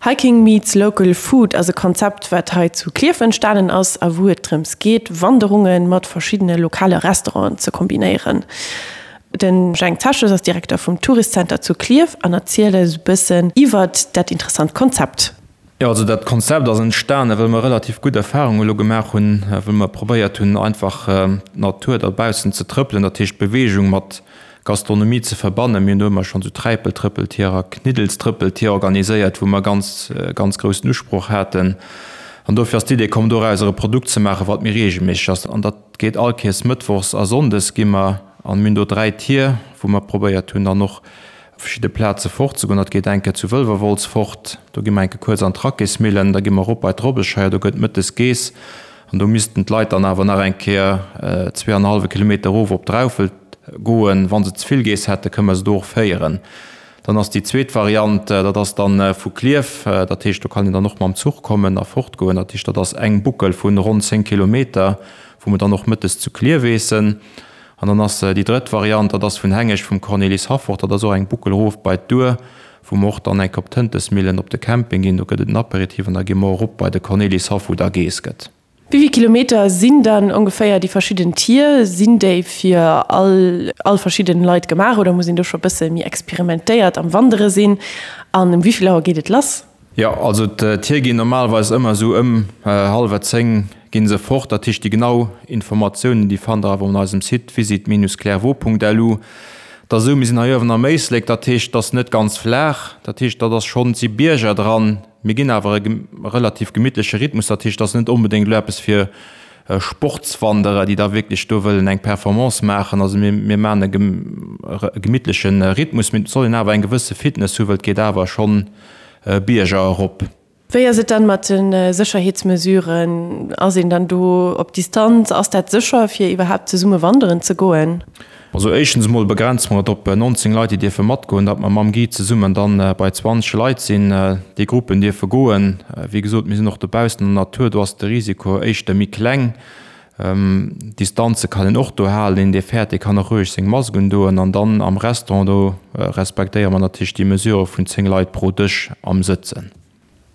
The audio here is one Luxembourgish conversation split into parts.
Hiking meets local food ass e Konzept, wat hei zu Klierf entstanen ass a wou et drëms geet, Wanderunge mat verschiddene lokale Restauranten ze kombinéieren. De Jhang Zeches ass Direkter vum Tourist Center zu Klierf an erzielt eis e bëssen iwwert dat interessant Konzept. Jo, also dat Konzept ass entstanen, well mer relativ gutt Erfahrungen elo gemaach hunn, wou mer probéiert hunn, einfach d'Natur dobaussen ze trëppelen, dat heescht Beweegung mat Gastronomie ze verbannen. Mir hunn do ëmmer schonn esou Träipeltrëppeltier a Kniddelstrëppeltier organiséiert, wou mer ganz, ganz groussen Usproch haten. An dofir ass d'Idee komm, dorauser e Produkt ze maachen, wat méi reegelméisseg ass. An dat geet all Kéiers mëttwochs a sonndes gi mer, an mir hunn do 3 Tier, wou mer probéiert hunn, dann och op verschidde Plaze fortzegoen. Dat geet eng Kéier zu Wëlwerwolz fort, do gi mer eng Kéier kuerz an d'Rackésmillen, da gi mer erop bei d'Robbescheier, do gëtt mëttes geess an do missten d'Leit dann awer nach eng Kéier zweeanenhallwe Kilometer erof op Draufelt goen. Wa se ze vill geess hätten, kënne mer se do och féieren. Dann ass déi zweet Variant, dat ass dann vu Klierf, dat heescht do kann een dann och mam Zuch kommen a fortgoen. Dat heescht, dat ass eng Buckel vu ronn 10 Kilometer, wou mer dann och mëttes zu Klierf eessen. An dann ass déi drëtt Variant, dat ass vun Hengescht vum Cornelis Haffort, dat ass och eng Buckel erof bei d'Our, wou mer och dann enk op d'Hëntesmillen op de Camping ginn. Do gëtt et en Aperitif an da gi mer erop bei de Cornelis Haff, wou da geess gëtt. Wéi vill Kilometer sinn dann ongeféier déi verschidden Tier? Sinn déi fir all all verschidden Leit gemaach oder muss een do scho bësse méi experimentéiert am Wandere sinn? An um wéi vill Auer geet et lass? Jo, also d'Tier ginn normalerweis ëmmer esou ëm hallwer 10 ginn se fort. Dat heescht déi genau Informatiounen déi fannt der awer un eisem Site visit-clairvaux.lu. Et ass esou, mir sinn hei uewen am Éislek, dat heescht et ass net ganz flaach, dat heescht dat ass schonn, et si Bierger dran. Mir ginn awer e relativ gemittleche Rhythmus, dat heescht et ass net onbedéngt elo eppes fir Sportswanderer, déi da wierklech do wëllen eng Performance maachen. Also mir, mir maachen e gemittleche Rhythmus, mee et soll een awer eng gewësse Fitness hu, well et geet awer schonn Bierger erop. Wéi ass et dann mat de Sécherheetsmesuren? Ass een dann do op Distanz? Ass dat sécher, fir iwwerhaapt zesumme wanderen ze goen? Also éischtens emol begrenze mer et op 19 Leit, déi dierfe matgoen, datt mer mam Guide zesummen dann bei 20 Leit sinn. Déi Gruppen dierfe goen. Wéi gesot, mir sinn och dobaussen an der Natur, do ass de Risiko éischter méi kleng. Distanze kann een och do halen. Een, dee fäert, dee kann och roueg seng Mask undoen. An dann am Restaurant, do respektéiere mer natierlech déi Mesure vun 10 Leit pro Dësch am Sëtzen.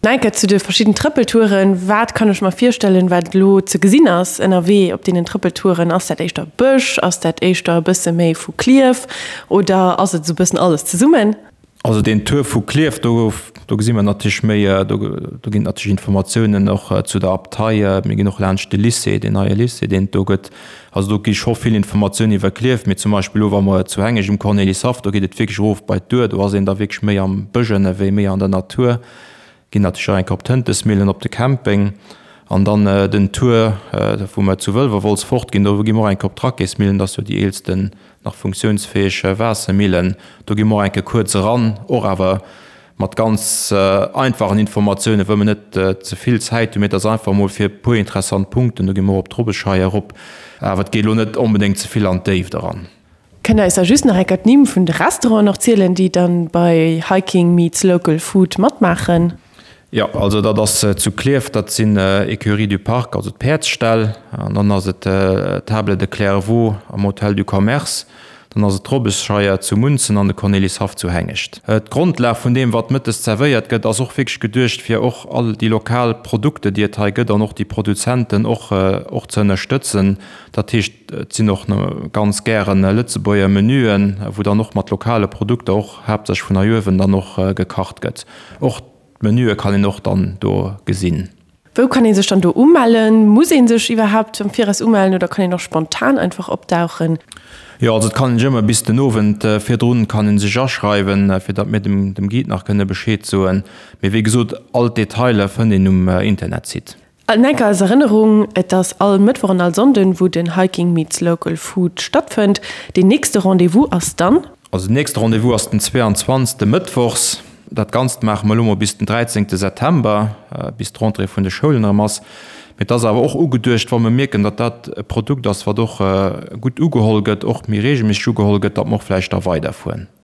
Enker zu de verschidden Trëppeltouren, Wat kann ech mer virstellen, wat elo ze gesinn ass ënnerwee op deenen Trëppeltouren? Ass dat éischter Bësch? Ass dat éischter e bësse méi vu Klierf oder ass et esou e bëssen alles zesummen? Also deen Tour vu Klierf, do do gesi mer natierlech méi, do do ginn et natierlech Informatiounen och zu der Abtei. Mir ginn och laanscht de Lycée, deen neie Lycée, deen et do gëtt. Also do gi scho vill Informatiounen iwwer Klierf. Mee zum Beispill elo wa mer zu Hengescht um Cornelyshaff, do geet et wierklech erof bei d'Our, do ass een da wierklech méi am Bësch ënnerwee, méi an der Natur. Ginn natierlech och eng Kéier op d'Hëntesmillen, op de Camping. An dann den Tour, wou mer zu Wëlwerwolz fortginn, do gi mer och eng Kéier op d'Rackésmillen, dat ass jo déi eelsten nach funktiounsfäeg Waassermillen. Do gi mer och eng Kéier kuerz eran, och awer mat ganz einfachen Informatiounen, wëll mer net ze vill Zäit hunn, mee et ass einfach emol fir e puer interessant Punkten. Do gi mer och op d'Robbescheier erop, awer et geet elo net onbedéngt ze vill an d'Déift eran. Kënnt der eis da just nach enker d'Nimm vun de Restauranten och zielen, déi dann bei Hiking meets Local Food matmaachen? Jo, also dat ass zu Klierf, dat sinn Écuries du Parc, also d'Päerdsställ, an dann ass et d'Table de Clairvaux am Hôtel du Commerce, dann ass et d'Robbesscheier zu Munzen an de Cornelyshaff zu Hengescht. D'Grondlag vun deem, wat mëttes zerwéiert gëtt, ass och wierklech geduecht, fir och all déi lokal Produkte, déi et hei gëtt, an och déi Produzenten och och ze ënnerstëtzen. Dat heescht, Et sinn och ganz gären Lëtzebuerger Menüen, wou dann och mat lokale Produkter, och haaptsächlech vun hei uewen, dann och gekacht gëtt. Och d'Menüe kann een och dann do gesinn. Wou kann ee sech dann do umellen? Muss ee sech iwwerhaapt am Viraus umellen oder kann een och spontan einfach opdauchen? Jo, also et kann een sech ëmmer bis den Owend virdrun kann een sech aschreiwen, fir datt mir dem dem Guide nach kënne Bescheed soen. Mee wéi gesot, all d'Detailer fënnt een um Internetsite. An enker als Erënnerung, Et ass all Mëttwoch an all Sonnden, wou den Hiking meets Local Food stattfënnt. Deen nächste Rendez-vous ass dann. Also den nächste Rendez-vous ass den 22. Mëttwochs. Dat Ganzt maache mer elo mol bis den 13. September, bis d'Rentrée vun de Schoulen erëm ass. Mee et ass awer och ugeduecht, wa mer mierken, datt dat e Produkt ass, wat och gutt ugeholl gëtt, och méi reegelméisseg ugeholl gëtt, datt mer och vläicht da weiderfueren.